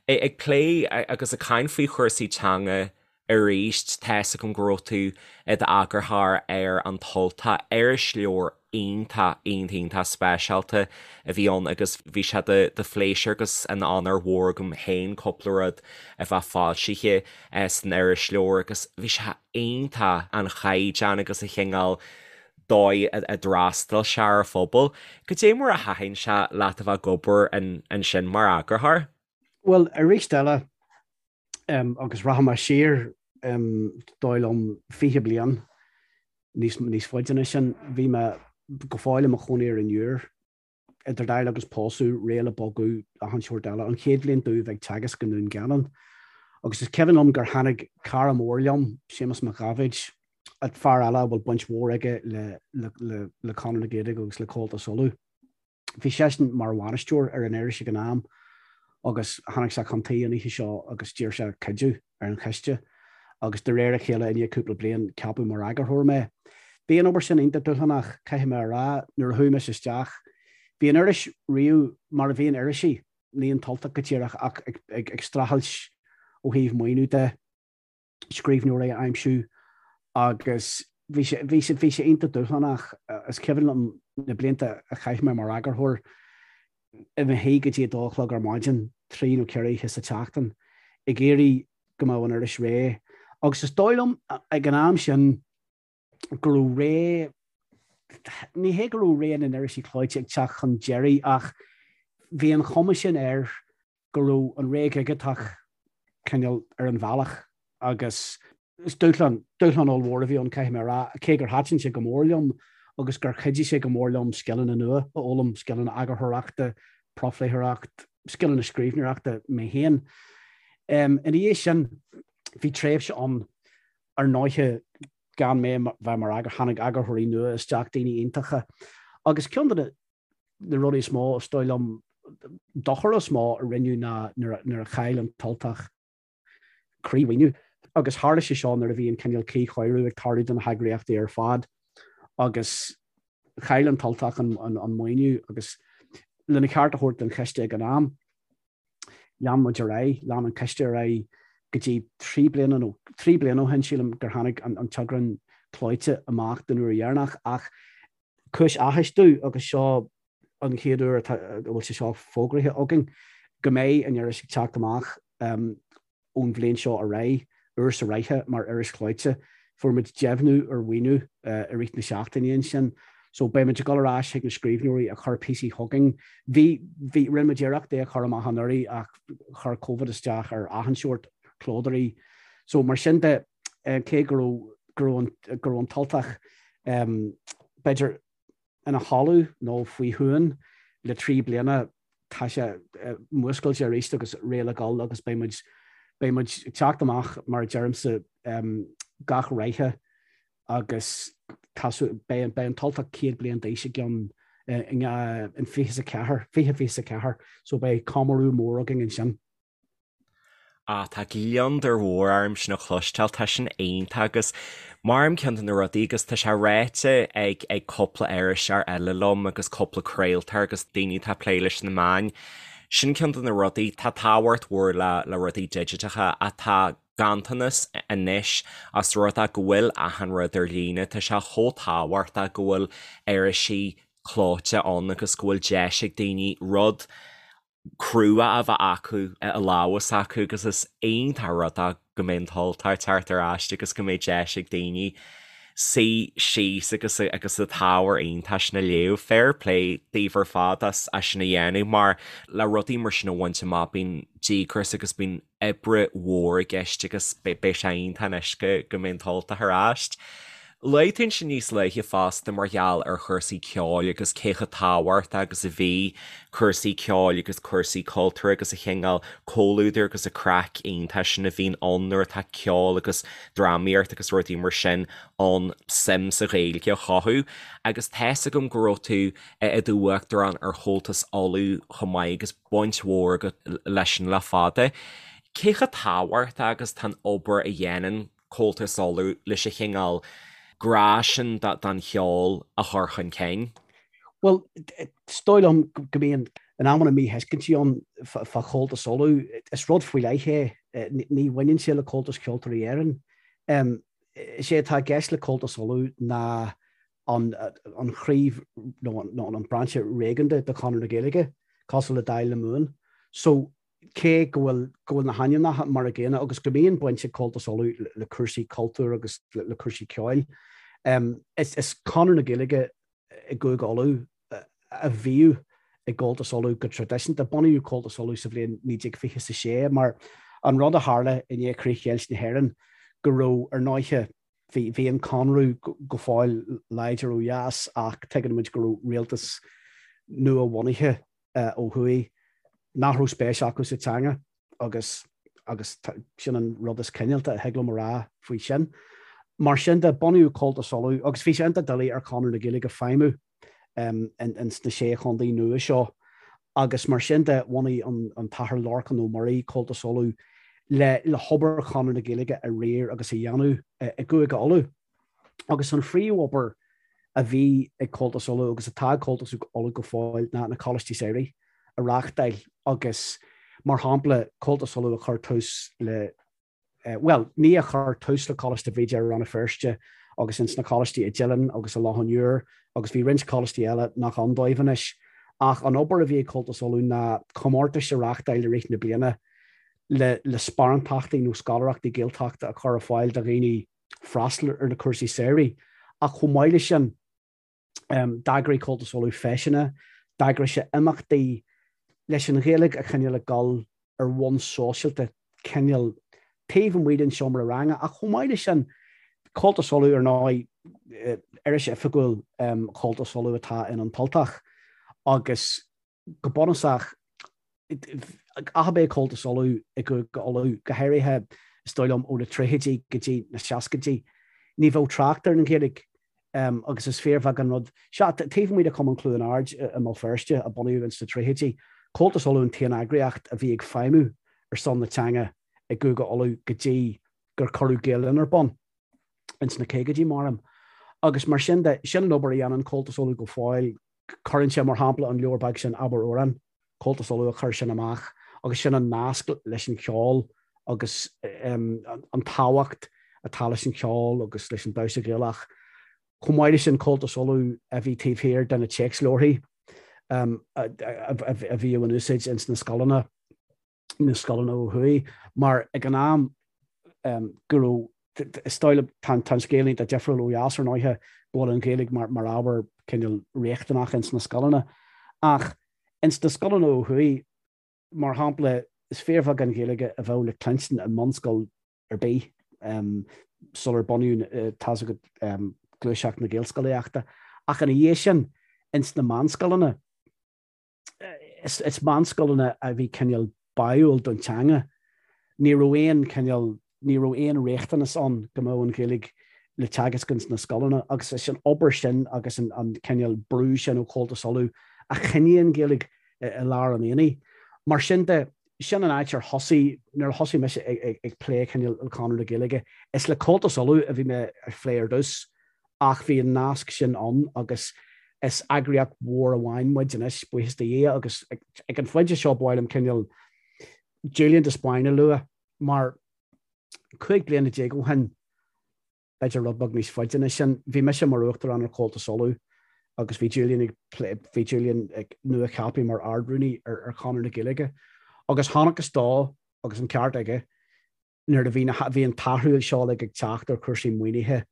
Ag plé agus ag caint faoi chúrsaí teanga Arís, tá's agam go raibh tú i d'eagarthóir ar An tUltach, irisleabhar iontach, iontach, iontach speisialta a bhí ann agus bhí sé de de phléisiúr agus ina onóir mhór agam féin cúpla rud a bheith foilsithe san irisleabhar agus bhí sé iontach an chaighdeán agus an chineál dóigh a d'fhreastail sé ar an phobal. Goidé mar a thaitin sé leat a bheith ag obair ansin mar eagarthóir? Bhuel, arís eile, agus rachaidh mé siar, dóigh liom, 20 bliain níos, níos faide ná sin, bhí mé go fóill i mo chónaí ar an Iúr, idir dáil agus pósadh, réidh le bogadh, achan seort eile, an chéad bhliain domh bheith ag teagasc i nDún Geanainn. Agus is cuimhin liom gur tháinig cara mór liom, Séamus Mac Dháibhéid, fear eile a bhfuil baint mhór aige le, le, le, le Conradh na Gaeilge agus le Comhaltas Uladh. Bhí seisean mar bhainisteoir ar an iris ag an am agus tháinig sé chun tí an oíche seo agus d'iarr sé cuidiú ar an chiste agus de réir a chéile i ndiaidh cúpla bliain ceapadh mar eagarthóir mé. Bhí an obair sin iontach dúshlánach, caithfidh mé a rá, nuair a chuaigh mise isteach. Bhí an iris riamh mar a bhíonn irisí, ní an tUltach go díreach ach ag streachailt ó thaobh maoiniú de. scríbhneoirí a aimsiú agus bhí sé, bhí sé, bhí sé iontach dúshlánach. Is cuimhin liom na blianta a chaith mé mar eagarthóir i mo shuí go dtí a dó a chlog ar maidin, trí nó ceithre oíche sa tseachtain, ag iarraidh go mbeadh an iris réidh. Agus is dóigh liom ag an am sin go raibh ré, ní hé go raibh ré na n-irisí clóite ag teacht chun deiridh ach bhí an chuma sin air go raibh an ré dhigiteach cineál ar an bhealach agus is dúshlán, dúshlán ollmhór a bhí ann, caithfidh mé a rá, cé gur thaitin sé go mór liom agus gur chuidigh sé go mór liom scileanna nua a fhoghlaim, scileanna eagarthóireachta, profléitheoireacht, scileanna scríbhneoireachta mé féin. Ina dhiaidh sin, bhí tréimhse ann ar ndóighe gan mé bheith mar eagar, tháinig eagarthóirí nua isteach, daoine iontacha, agus ceann de na rudaí is mó, is dóigh liom, dochar is mó a rinneadh ná nuair a chaill an tUltach croí-mhaoiniú. Agus tharla sé seo nuair a bhí an cineál cuíchóiriú ag tarlú do na heagraíochtaí ar fad agus chaill an tUltach an maoiniú agus lena cheart a thabhairt don chiste ag an am, lean muid ar aghaidh, lean an coiste ar aghaidh go dtí trí bliana nó trí bliana ó shin, sílim, gur tháinig an t-eagrán clóite amach den uair dheireanach ach cúis áthais domh agus seo an chéad uair atá a bhfuil sé seo fógraithe againn, go mbeidh an iris ag teacht amach ón bhliain seo ar aghaidh, uair sa ráithe mar iris chlóite. Fuair muid deimhniú ar mhaoiniú i rith na seachtaine ansin. So beidh muid ag dul ar ais chuig na scríbhneoirí a chuir píosaí chugainn. Bhí, bhí, rinne muid iarracht é a chur amach anuraidh ach chuir Covid isteach ar achan seort clódóirí. So mar sin de, cé go raibh. go raibh an tUltach b'fhéidir ina chodladh nó faoi shuan le 3 bliana, tá sé múscailte arís agus réidh le dhul agus beidh muid, beidh muid ag teacht amach mar a deirimse gach ráithe agus tá, beidh, beidh an tUltach 100 bliain d'aois i gceann in 24, 2024 so beidh comóradh mór againn ansin. Ah, tá gliondar mhór orm sin a chloisteáil, tá sin iontach agus maram ceann de na rudaí agus tá sé ráite ag ag cúpla iriseoir eile liom agus cúpla craoltóir agus daoine atá ag plé leis na meáin, sin ceann de na rudaí, tá tábhacht mhór le le rudaí digiteacha ach tá ganntanas anois os rud é go bhfuil achan rud ar líne, tá sé chomh tábhachtach go bhfuil irisí clóite ann agus go bhfuil deis ag daoine rud crua a bheith acu i lámha s'acu agus is iontach rud é go mbeidh an tUltach ag teacht ar ais agus go mbeidh deis ag daoine suí síos agus agus an t-ábhar iontach sin a léamh. Fair play daoibh ar fad as sin a dhéanamh mar le rudaí mar sin a bhaint amach bíonn díograis agus bíonn oibre mhór i gceist agus beidh sé iontach anois go mbeidh an tUltach ar ais. Luaigh tú ansin níos luaithe fosta mar gheall ar chúrsaí ceoil agus cé chomh tábhachtach agus a bhí cúrsaí ceoil agus cúrsaí cultúir agus an cineál comhluadair agus an craic iontach sin a bhíonn ann nuair atá ceol agus drámaíocht agus rudaí mar sin ann suim sa Ghaeilge a chothú. Agus tá's agam go raibh tú i do uachtarán ar Chomhaltas Uladh chomh maith agus baint mhór agat leis sin le fada. Cé chomh tábhachtach agus tá an obair a dhéanann Comhaltas Uladh leis an chineál grá sin don cheol a chur chun cinn? Bhuel, is dóigh liom go mbíonn in amanna míthuiscintí ann fá Chomhaltas Uladh. Is rud faoi leith é. Ní bhaineann sé le Comhaltas Ceoltóirí Éireann. Is é atá i gceist le Comhaltas Uladh ná an chraobh nó an brainse réigiúnda de Chonradh na Gaeilge, cosúil le Dáil na Mumhan. So, cé go bhfuil go bhfuil na hainmneacha mar a gcéanna agus go mbíonn baint ag Comhaltas Uladh le cúrsaí cultúir agus le cúrsaí ceoil, is Conradh na Gaeilge i gCúige Uladh a bhíodh i gComhaltas Uladh go traidisiúnta. Bunaíodh Comhaltas Uladh sa bhliain 1926 mar an rud a tharla i ndiaidh chríochdheighilt na hÉireann go raibh, ar ndóiche, Bhí an Conradh go fóill láidir ó dheas ach tuigeann muid go raibh rialtas nua-bhunaithe ó thuaidh nach raibh spéis acu sa teanga agus agus sin an rud is cineálta a thig liom a rá faoi sin. Mar sin de, bunaíodh Comhaltas Uladh agus bhí sé iontach doiligh ar Chonradh na Gaeilge feidhmiú ins na sé chontae nua seo agus mar sin de bhunaigh an tAthair Lorcán Ó Muirí Comhaltas Uladh le le hobair Chonradh na Gaeilge a riar agus a dhéanamh i gCúige Uladh. Agus an phríomhobair a bhí ag Comhaltas Uladh agus atá ag Comhaltas Uladh go fóill ná na Coláistí Samhraidh a reáchtáil agus mar shampla Comhaltas Uladh a chuir tús le bhuel, ní a chuir tús le Coláiste Bhríde i Rann na Feirste agus ins na coláistí i dTeileann agus i Loch an Iúir agus bhí roinnt coláistí eile nach ann dóibh anois. Ach an obair a bhí ag Comhaltas Uladh ná comórtais a reáchtáil i rith na bliana le le sparántachtaí nó scoláireachtaí Gaeltachta a chur ar fáil do dhaoine freastal ar na cúrsaí samhraidh. Ach chomh maith leis sin, D'eagraigh Comhaltas Uladh feiseanna, d'eagraigh sé imeachtaí leis an Ghaeilge a choinneáil ag dul ar bhonn sóisialta, cineál taobh amuigh den seomra ranga. Ach chomh maith leis sin, Comhaltas Uladh, ar ndóigh, iris oifigiúil Chomhaltas Uladh atá in An tUltach agus go bunúsach, ach ab é Comhaltas Uladh i gCúige Uladh, go háirithe, is dóigh liom, ó na tríochaidí go dtí na seascaidí, ní bheadh trácht ar an Ghaeilge agus is fíorbheag an rud. Sea, taobh amuigh de Chumann Chluain Ard i mBéal Feirste, a bunaíodh ins na tríochaidí, Comhaltas Uladh an t-aon eagraíocht a bhí ag feidhmiú ar son na teanga i gCúige Uladh go dtí gur cuireadh Gael Linn ar bun ins na caogaidí, maram. Agus mar sin de, sin an obair a dhéanann Comhaltas Uladh go fóill, Cuireann sé, mar shampla, an leabhar beag sin Abair Amhrán, Comhaltas Uladh a chuir sin amach agus sin an nasc leis an cheol agus an tábhacht atá leis an cheol agus leis an damhsa Gaelach. Chomh maith leis sin, Comhaltas Uladh a bhí taobh thiar de na téacsleabharthaí a bhíodh in úsáid ins na scoileanna. na scoileanna ó thuaidh, mar ag an am go raibh, is dóigh liom, tá an scéal iontach difriúil ó dheas ar ndóighe, go bhfuil an Ghaeilge mar ábhar cineál riachtanach ins na scoileanna. Ach ins na scoileanna ó thuaidh, mar shampla, is fíorbheag an Ghaeilge a bheadh le cluinstin i mbunscoil ar bith. sular bunaíodh tá's agat gluaiseacht na Gaelscolaíochta ach ina dhiaidh sin ins na meánscoileanna is meánscoileanna a bhí cineál báúil don teanga. Ní raibh aon cineál, ní raibh aon riachtanas ann go mbeadh an Ghaeilge le teagasc ins na scoileanna agus is an obair sin agus an cineál brú sin ó Chomhaltas Uladh a choinnigh an Ghaeilge i lár an aonaigh. Mar sin de, sin an áit ar thosaigh, nuair a thosaigh mise ag plé cineál le Conradh na Gaeilge, is le Comhaltas Uladh a bhí mé ag plé ar dtús ach bhí an nasc sin ann agus is eagraíocht mhór amháin muid anois, buíochas do Dhia, agus ag an phointe seo ba mhaith liom cineál Julian de Spáinn a lua mar 15 bliana ó shin, b'fhéidir rud beag níos faide ná sin, bhí mise mar Uachtarán ar Chomhaltas Uladh agus bhí Julian ag plé, bhí Julian ag nua-cheaptha mar Ard-Rúnaí ar Chonradh na Gaeilge agus chonacthas dó, agus an ceart aige, nuair a bhí na, bhí an t-athrú seo uilig ag teacht ar chúrsaí maoinithe,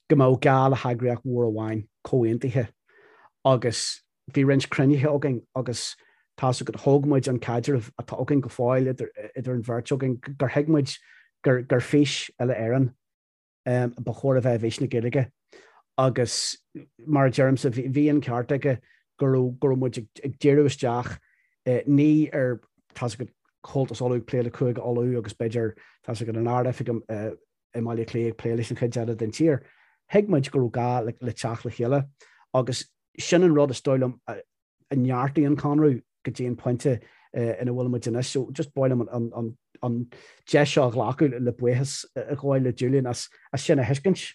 go mbeadh gá le heagraíocht mhór amháin, comhaontaithe. Agus bhí roinnt cruinnithe againn agus tá's agat, thóg muid an caidreamh atá againn go fóill idir, idir an bheirt againn, gur thuig muid gur, gur fís uile-Éireann ba chóir a bheith i bhfís na Gaeilge. Agus mar a deirimse, bhí an ceart aige go raibh, go raibh muid ag díriú isteach ní ar, tá's agat, Comhaltas Uladh ag plé le Cúige Uladh agus b'fhéidir, tá's agat, an Ard-Oifig i mBaile Átha Cliath ag plé leis an chuid eile den tír. Thuig muid go raibh gá le teacht le chéile agus sin an rud is dóigh liom a neartaigh an Conradh go dtí an pointe ina bhfuil muid anois. So just ba mhaith liom an deis seo a ghlacadh le buíochas a ghabháil le Julian as sin a thuiscint.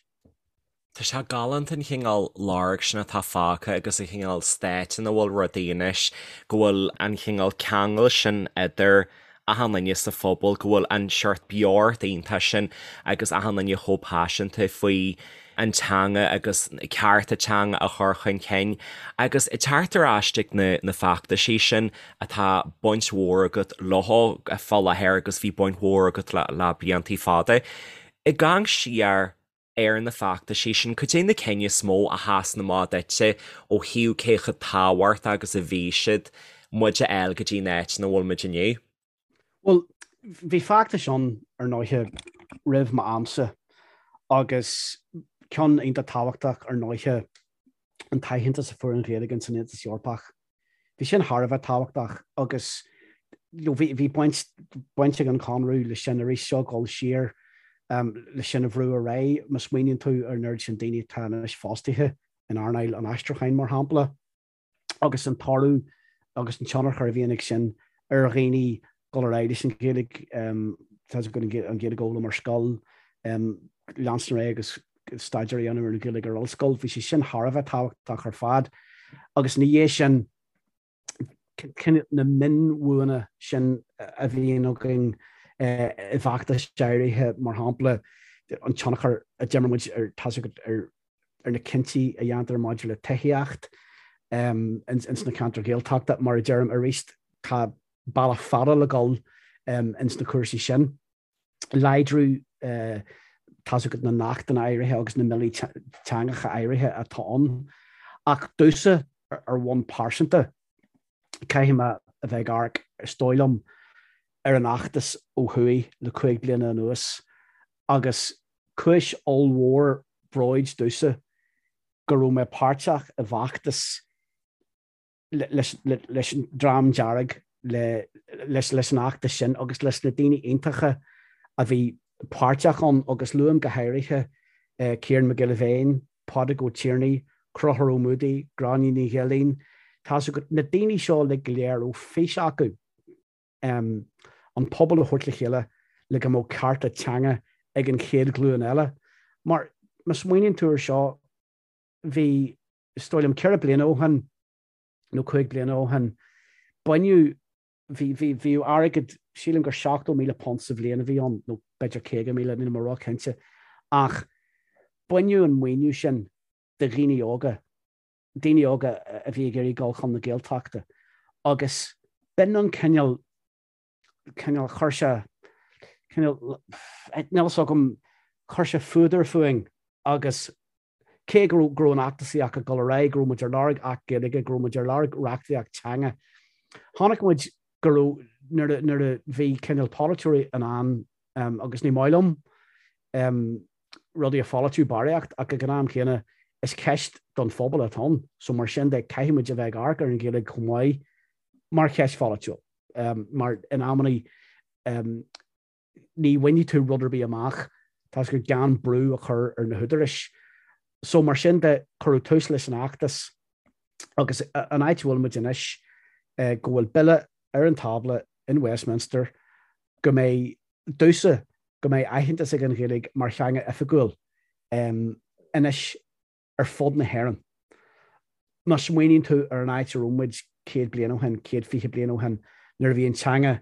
Tá sé galánta an chineál lorg sin atá fágtha agus an chineál state ina bhfuil rudaí anois, go bhfuil an chineál ceangal sin idir achan duine sa phobal, go bhfuil an seort beocht iontach sin agus achan duine chomh paiseanta faoi an teanga agus cearta teanga a chur chun cinn. Agus ag teacht ar ais ag na na feachtaisí sin atá baint mhór agat leo fá láthair agus bhí baint mhór agat le le bliantaí fada. Ag amharc siar ar na feachtaisí sin, cad é na cinn is mó a sheasann amach duitse ó thaobh cé chomh tábhachtach agus a bhí siad muid a fháil go dtí an áit ina bhfuil muid inniu? Bhuel, bhí feachtais ann, ar ndóiche, roimh m'amsa agus ceann iontach tábhachtach, ar ndóiche, an t-aitheantas a fuair an Ghaeilge ins an Aontas Eorpach. Bhí sin thar a bheith tábhachtach agus bhí bhí baint baint ag an Chonradh leis sin arís seo dul siar leis sin a bhrú ar aghaidh. Má smaoiníonn tú ar an oiread sin daoine atá anois fostaithe in earnáil an aistriúcháin, mar shampla, agus an toradh agus an tionchar a bhíonn ag sin ar dhaoine dul ar aghaidh leis an Ghaeilge, tá an Ghaeilge a fhoghlaim ar scoil, leanstan ar aghaidh agus staidéar a dhéanamh ar an Ghaeilge ar ollscoil. Bhí sé sin thar a bheith tábhachtach ar fad. Agus ina dhiaidh sin, na mionbhuanna sin a bhíonn againn i bhfeachtais áirithe, mar shampla, an tionchar a d'imir muid ar, tá's agat, ar ar na cinntí a dhéantar maidir le tithíocht ins na ceantair Ghaeltachta. Mar a deirim arís, tá bealach fada le dul ins na cúrsaí sin. Láidriú tá's agat na n-achtanna áirithe agus na mbillí teangacha áirithe atá ann. Ach domhsa, ar bhonn pearsanta, caithfidh mé a bheith ag amharc, is dóigh liom, ar an fheachtas ó thuaidh le 5 bliana anuas agus Cúis ollmhór bróid domhsa go raibh mé páirteach i bhfeachtas leis an Dream Dearg, leis an fheachtas sin agus leis na daoine iontacha a bhí páirteach ann agus luaim go háirithe Ciarán Mac Giolla Bhéin, Pádraig Ó Tiarnaigh, Conchúr Ó Muadaigh, Gráinne Ní Ghilín, tá's agat, na daoine seo uilig go léir a raibh fís acu. an pobal a thabhairt le chéile le go mbeadh cearta teanga ag an chéad ghlúin eile. Mar má smaoiníonn tú ar seo, bhí, is dóigh liom, 4 bliana ó shin nó 5 bliana ó shin, baineadh, bhí, bhí, bhíodh airgead, sílim gur £70,000 sa bhliain a bhí ann, nó b'fhéidir 50,000, níl mé ró-chinnte, ach baineadh an maoiniú sin de dhaoine óga daoine óga a bhí ag iarraidh dul chun na Gaeltachta agus b'in an cineál, cineál, chuir sé, cineál, níl fhios agam, chuir sé fuadar fúinn agus cé go raibh, go raibh an fheachtasaíocht ag dul ar aghaidh, go raibh muid ar lorg Acht Gaeilge, go raibh muid ar lorg reachtaíocht teanga, chonaic muid go raibh, nuair a, nuair a bhí cineál polaiteoirí in ann, agus ní maith liom. Rudaí a pholaitiú barraíocht ach ag an am chéanna is ceist don phobal atá ann so mar sin de caithfidh muid a bheith ag amharc ar an Ghaeilge chomh maith mar cheist pholaitiúil mar in amannaí ní bhainfidh tú rud ar bith amach tá gur gan brú a chur ar na húdaráis. So mar sin de cuireadh tús leis an fheachtas agus an áit a bhfuil muid anois go bhfuil bille ar an tábla in Westminster go mbeidh domhsa go mbeidh aitheantas ag an Ghaeilge mar theanga oifigiúil anois ar fud na hÉireann. Má smaoiníonn tú ar an áit a raibh muid 100 bliain ó shin, 120 bliain ó shin, nuair a bhí an teanga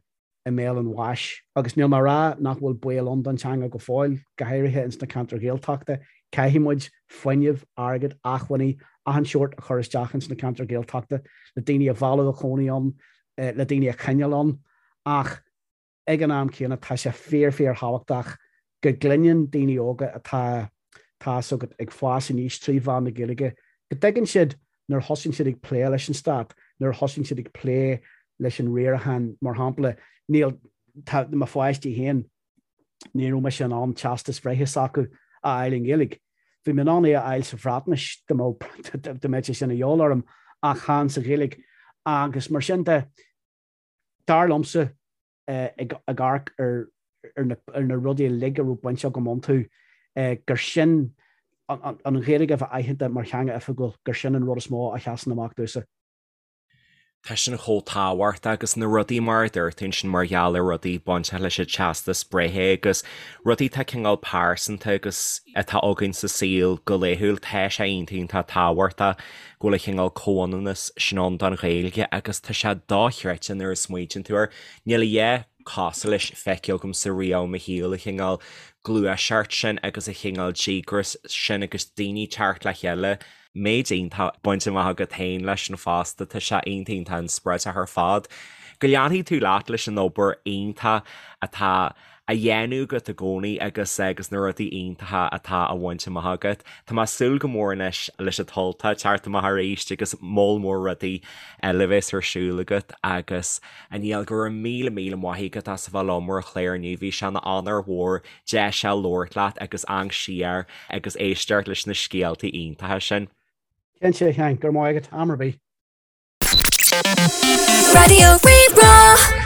i mbéal an bháis, agus níl mé ag rá nach bhfuil baol ann don teanga go fóill, go háirithe ins na ceantair Ghaeltachta, caithfidh muid fuinneamh, airgead, acmhainní, achan seort a chur isteach ins na ceantair Ghaeltachta le daoine a mhealladh a chónaí ann, le daoine a choinneáil ann, ach ag an am céanna tá sé fíor fíor thábhachtach go gcluineann daoine óga atá, tá's agat, ag fás aníos trí mheán na Gaeilge, go dtuigeann siad nuair a thosaíonn siad ag plé leis an stát, nuair a thosaíonn siad ag plé leis an riarachán, mar shampla, níl, tá mo pháistí féin, ní raibh mise in ann teastas bhreithe s'acu a fháil i nGaeilge. Bhí mé in ann é a fháil sa Bhreatnais dá mbeadh sé sin a dhíobháil orm ach chan sa Ghaeilge. Agus mar sin de, Dar liomsa, ag amharc ar na rudaí uilig a raibh baint agam iontu, gur sin an Ghaeilge a bheith aitheanta mar theanga oifigiúil, gur sin an rud is mó a sheasann amach domhsa. Tá sin chomh tábhachtach agus na rudaí mar a dúirt tú ansin mar gheall ar rudaí bainteach leis an teastas breithe agus rudaí atá cineál pearsanta agus atá againn sa saol go laethúil, tá sé iontach iontach tábhachtach go bhfuil an cineál comhionannas sin ann don Ghaeilge agus tá sé dochreidte nuair a smaoitíonn tú air. Níl a dhath cosúil leis feicthe agamsa riamh i mo shaol, an cineál gluaiseacht sin agus an cineál díograis sin agus daoine teacht le chéile. Méid iontach bainte amach agat féin leis sin fosta, tá sé iontach iontach inspioráideach ar fad. Go leanfaidh tú leat leis an obair iontach atá á dhéanamh agat i gcónaí agus agus na rudaí iontacha atá á bhaint amach agat. Tá mé ag súil go mór anois leis an tUltach teacht amach arís agus moll mór rudaí eile a bheas ar siúl agat agus a Niall go raibh míle míle maith agat as a bheith liom ar an chlár inniu. Bhí sé ina onóir mhór deis a labhairt leat agus amharc siar agus éisteacht leis na scéaltaí iontacha sin. Cinnte, a Sheáin, go raibh maith agat, am ar bith. Raidió Rí-Rá.